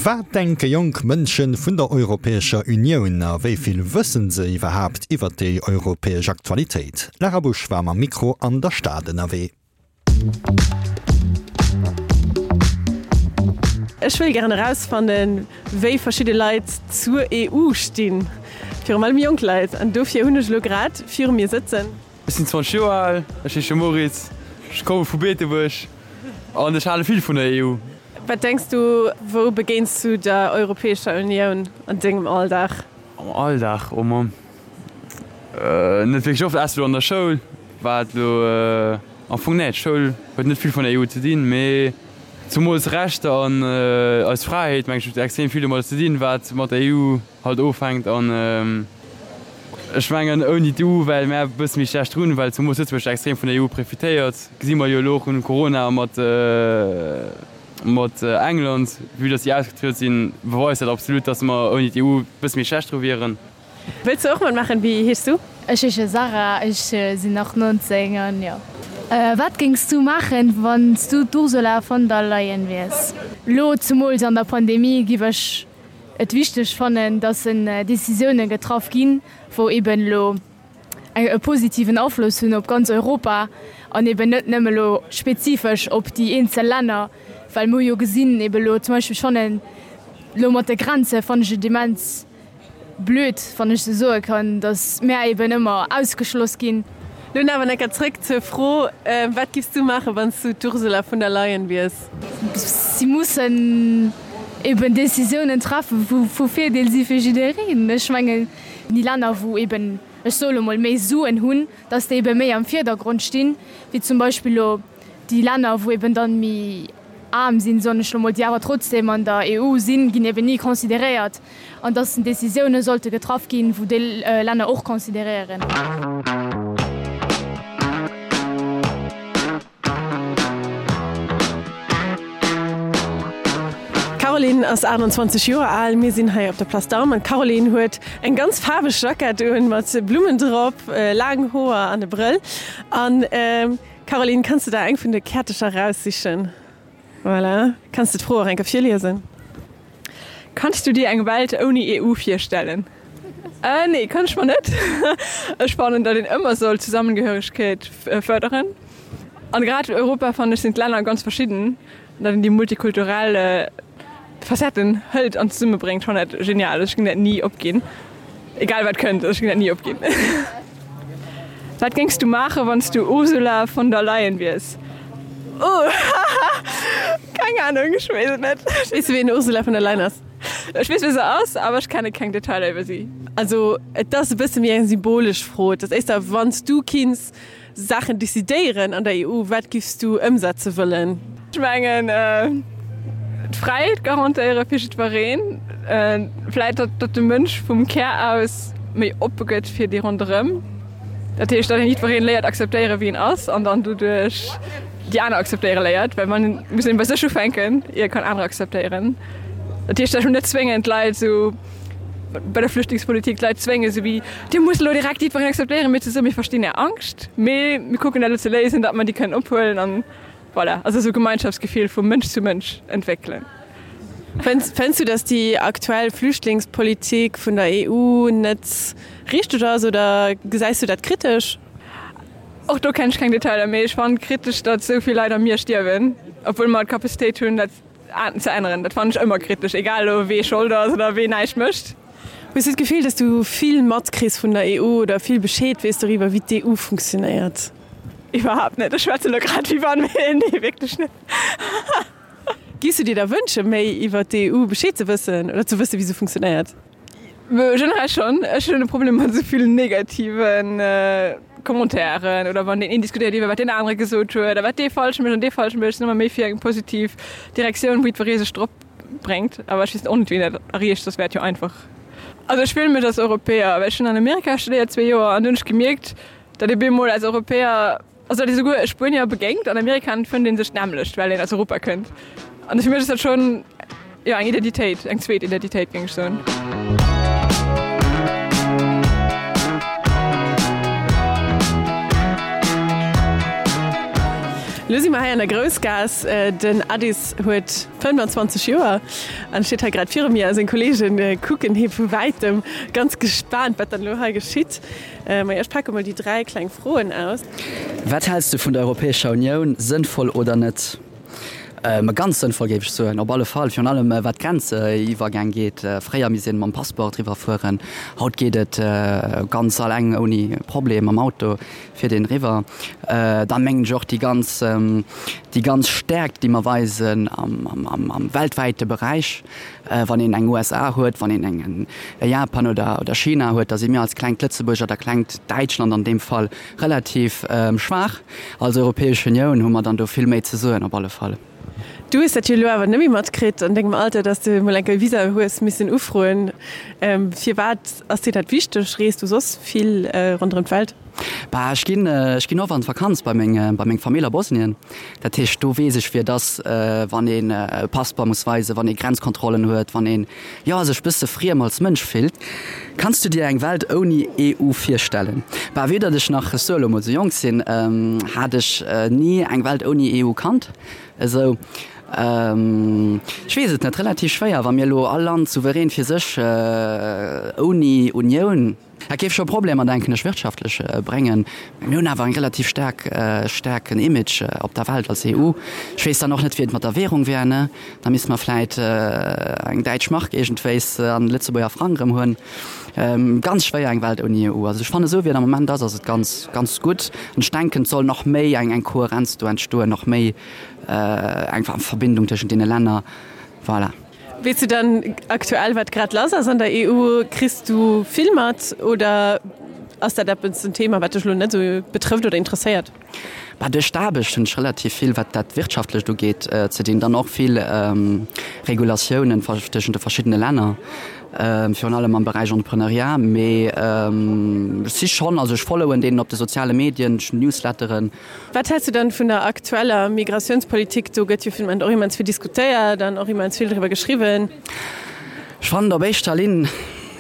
Wat denke jonk Mënsche vun der Europäescher Unioun a wéi vill wëssen se iwwerhaapt iwwer déi europäesch Aktualitéit? D'Lara Busch war mam Mikro an der Stad ënnerwee. Ech wëll gären erausfannen, wéi verschidde Leit zur EU stinn, virum allem jonk Leit. An dofir hunn ech elo grad viru mir sëtzen. Ech sinn 20 Joer al, ech heesche Moritz, ech komme vu Beetebuerg an ech hale vill vun der EU. Wat denks du, wou begéins du der Europäescher Unioun an dengem Alldag? Am Alldag, oh Mamm, net wierklech oft, ausser elo an der Schoul, wat elo am Fong, nee, d'Schoul huet net vill vun der EU ze dinn, mee zumools Rechter an eis Fräiheet, meng ech, huet extrem vill domadder ze dinn, wat mat der EU halt ofhänkt an ech mengen ouni d'EU wäre mär e bësse méi schlecht drun, well zemoos Lëtzebuerg extrem vun der EU profitéiert, gesi mer jo elo och un Corona a mat mat England, vue dass déi ausgetrieden sinn, beweist dat absolut, dass mer ouni d'EU e bësse méi schlecht dru wieren. Wëlls du och matmaachen? Wéi heeschs du? Ech heesche Sarah, ech sinn nach 19 an jo. Wat géings du maachen, wann s du d'Ursula von der Leyen wiers? Lo zemools an der Pandemie giff ech et wichteg fannen, dass en Décisiounen getraff ginn, wou eben elo e positiven Afloss hunn op ganz Europa an eben net nëmme elo spezifesch op déi eenzel Länner, well mer hu jo gesinn, eben elo zum Beispill, ech fannen elo mat de Grenze fannen ech et immens blöd, wann ech sou soe kann, datt mär eben ëmmer ausgeschloss ginn. Lo awer enker zréck zur Fro, Wat giffs du maachen, wann s du d'Ursula vun der Leyen wiers? Si mussen eben Décisiounen treffen, wou vu Virdeel si fir jiddereen. Ech mengen, déi Länner, wou eben, ech soe lo mol, méi Suen hunn, datt déi ebe méi am Virdergrond stinn, wéi zum Beispill lo déi Länner, wou eben dann méi aarm sinn, soen ech lo mol, déi awer trotzdem an der EU sinn, ginn eben ni consideréiert. An dass Décisioune sollte getraff ginn, wou déi Länner och consideréieren. D'Caroline ass 28 Joer al. Mir sinn hei op der Place d'Armes an d'Caroline huet eng ganz faarweg Jackett un mat Blummen drop, laang Hoer an e Brëll. An Caroline, kanns de der eng vun de Käertecher raussichen? Voilà. Kanns de d'Fro och eng Kéier virliesen? Kanns du dir eng Welt ouni EU virstellen? Äh, nee, kann ech mer net. Ech fannen, datt een ëmmer soll Zusammengehörigkeet fërderen. An grad Europa, fannen ech, sinn d'Länner ganz verschidden, datt een déi multikulturell Facetten hëlt an zesummebréngt, fannen dat genial. Ech géing dat ni opginn, egal wat kënnt, ech géing dat ni opginn. Wat géings du maachen, wann s du Ursula von der Leyen wiers? Oh, keng Ahnung, ech weess et net. Weess du ween Ursula von der Leyen ass? Ech weess wie se ass, awer ech kenne keng Detailer iwwer si. Also et ass e bësse méi eng symbolesch Fro. Et ass éischter, wann s du kinns Saachen decidéieren an der EU, wat giffs du ëmsetze wëllen? Ech mengen d'Fräiheet garantéiere fir jiddwereen. Vläit datt de Mënsch vum Kär aus méi oppe gëtt fir déi ronderëm. Dat heescht, datt een jiddwereen léiert akzeptéiere wéi en ass an dann doduerch déi aner akzeptéiere léiert, well man muss een bei sech ufänken, ier e kann anerer akzeptéieren. Dat heescht, ech wëll net zwéngen d'Leit esou bei der Flüchtlingspolitik d'Leit zwéngen, esou wéi Dir musst elo direkt jiddwereen akzeptéieren, mee ze soen, mir verstinn Är Angscht, mee mir kucken dat elo ze léisen, datt mer déi kënnen ophuelen an voilà, also esou Gemeinschaftsgefill vu Mënsch zu Mënsch entwéckelen. Fënns du, datt déi aktuell Flüchtlingspolitik vun der EU net richteg ass oder gesäis du dat kritesch? Och do kennen ech keng Detailer, mee ech fannen kritesch, datt esou vill Leit am Mier stierwen, obwuel mer d'Capacitéit hunn, dat ze änneren. Dat fannen ech ëmmer kritesch, egal elo wee Schold ass oder wee näischt mécht. Hues du d'Gefill, datt du vill matkriss vun der EU oder vill Bescheed weess doriwwer, wéi d'EU funktionéiert? Iwwerhaapt net. Ech schwätze elo grad wéi wann, mee nee, wierklech net. Giffs du dir da wënsche méi iwwer d'EU Bescheed ze wëssen oder ze wëssen, wéi se funktionéiert? Generell schonn. Ech hunn e Problem mat esou vill negative Commentairen oder wann deen een diskutéiert iwwer wat deen anere gesot huet a wat dee falsch mécht an dee falsch mécht. Ech sinn ëmmer méi fir eng positiv Direktioun, wou jiddweree sech drop bréngt. Awer ech weess och net, wéi een dat erreecht, soss wär et jo einfach. Also ech fillen mech als Europäer, well ech hunn an Amerika studéiert zwee Joer an do hunn ech gemierkt, datt ee bemol als Europäer, Also datt ee souguer e Spuenier begéint an Amerika an et fënnt ee sech d'nämmlecht, well een aus Europa kënnt. An fir mech ass dat schonn, jo, eng Identitéit, eng zweet Identitéit, géing ech soen. Lo si mer hei an der Groussgaass. Den Addis huet 25 Joer an steet hei grad viru mir a seng Kolleege kucken hie vu wäitem ganz gespaant, wat dann elo hei geschitt. Majo, ech pake mol déi 3 kleng Froen aus. Wat häls du vun der Europäescher Unioun, sënnvoll oder net? Ganz sënnvoll géif ech soen, op alle Fall, virun allem wat d'Grenziwwergäng geet. Fréier misst een mam Passeport eriwwer fueren, haut geet et ganz alleng ouni Problem mam Auto fiert een eriwwer. Dann mengen ech och déi ganz, déi ganz Stäerkt déi mer weisen am weltwäite Beräich, wann een eng USA huet, wann een eng Japan oder China huet, da si mir als klengt Lëtzebuerg oder klengt Däitschland an deem Fall Relativ schwaach. Als Europäesch Unioun hu mer dann do vill méi ze soen op alle Fall. Du hues dat jo elo awer net méi matkritt an dengem Alter, dass de mol eng Kéier e Visa hues missen ufroen. Firwat ass dir dat wichteg? Rees du soss vill ronderëm d'Welt? Bah, ech ginn, ech ginn oft an d'Vakanz bei meng, bei meng Famill a Bosnien. Dat heescht, do weess ech, wéi et ass, wann een e Passeport muss weisen, wann ee Grenzkontrollen huet, wann een, jo, sech bësse friem als Mënsch fillt. Kanns du dir eng Welt ouni EU virstellen? Bah, vue datt ech nach, ech soe lo mol, sou jonk sinn, hat ech ni eng Welt ouni EU kannt. Esou, ech weess et net, relativ schwéier, wa mir elo all Land souverän fir sech ouni Unioun, Dat géif scho Problemer, denken ech, wirtschaftlech bréngen. Mä mir hunn awer eng relativ staark, staarken Image op der Welt als EU. Ech weess dann och net, wéi et mat der Währung wär, ne? Da misste mer vläit eng däitsch Mark iergendwéis an Lëtzebuerger Frang erëm hunn. Ganz schwéier eng Welt ouni EU. Also ech fannen, esou wéi et am Moment ass, ass et ganz, ganz gutt. An ech denken, et soll nach méi eng, eng Kohärenz do entstoen, nach méi eng Verbindung tëschent deene Länner. Voilà. Weess du dann aktuell wat grad lass ass an der EU? Kriss du vill mat oder ass dat eppes en Thema wat dech elo net esou betrëfft oder interesséiert? Bah, duerch d'Aarbecht hunn ech relativ vill wat dat Wirtschaftlecht ugeet ze dinn, dann och vill Regulatiounen tëschent de verschiddene Länner, virun allem am Beräich Entrepreneuriat. Mee ech si schonn, also ech followen deenen op de soziale Medien, ech hunn Newsletteren. Wat häls du dann vun der aktueller Migratiounspolitik? Do gëtt jo vun Moment och immens vill diskutéiert an och immens vill driwwer geschriwwen. Ech fannen et op éischter Linn,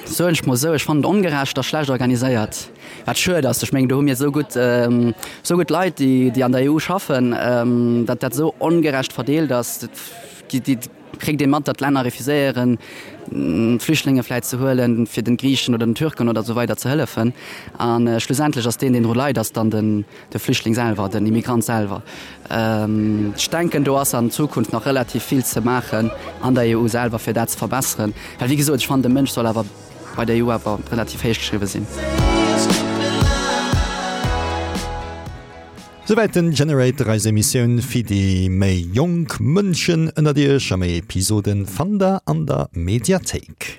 soen ech mol esou, ech fannen et ongerecht a schlecht organiséiert, wat schued ass. Ech mengen, do hu mir esou gutt, esou gutt Leit, déi, déi an der EU schaffen, datt dat esou ongerecht verdeelt ass. Déi, déi kritt ee mat, datt d'Länner refuséieren, Flüchtlinge vläit ze huelen, fir den Griichen oder den Türken oder esou weider ze hëllefen. A schlussendlech ass deen, deen dru leit, ass dann den, de Flüchtling selwer, den Immigrant selwer. Ech denken, do ass an Zukunft nach relativ vill ze maachen an der EU selwer, fir dat ze verbesseren. Well wéi gesot, ech fannen, de Mënsch soll awer bei der EU awer relativ héich geschriwwe sinn. Souwäit den Generator, eis Emissioun fir déi méi jonk Mënschen ënnert iech. A méi Episoden fannt der an der Mediathéik.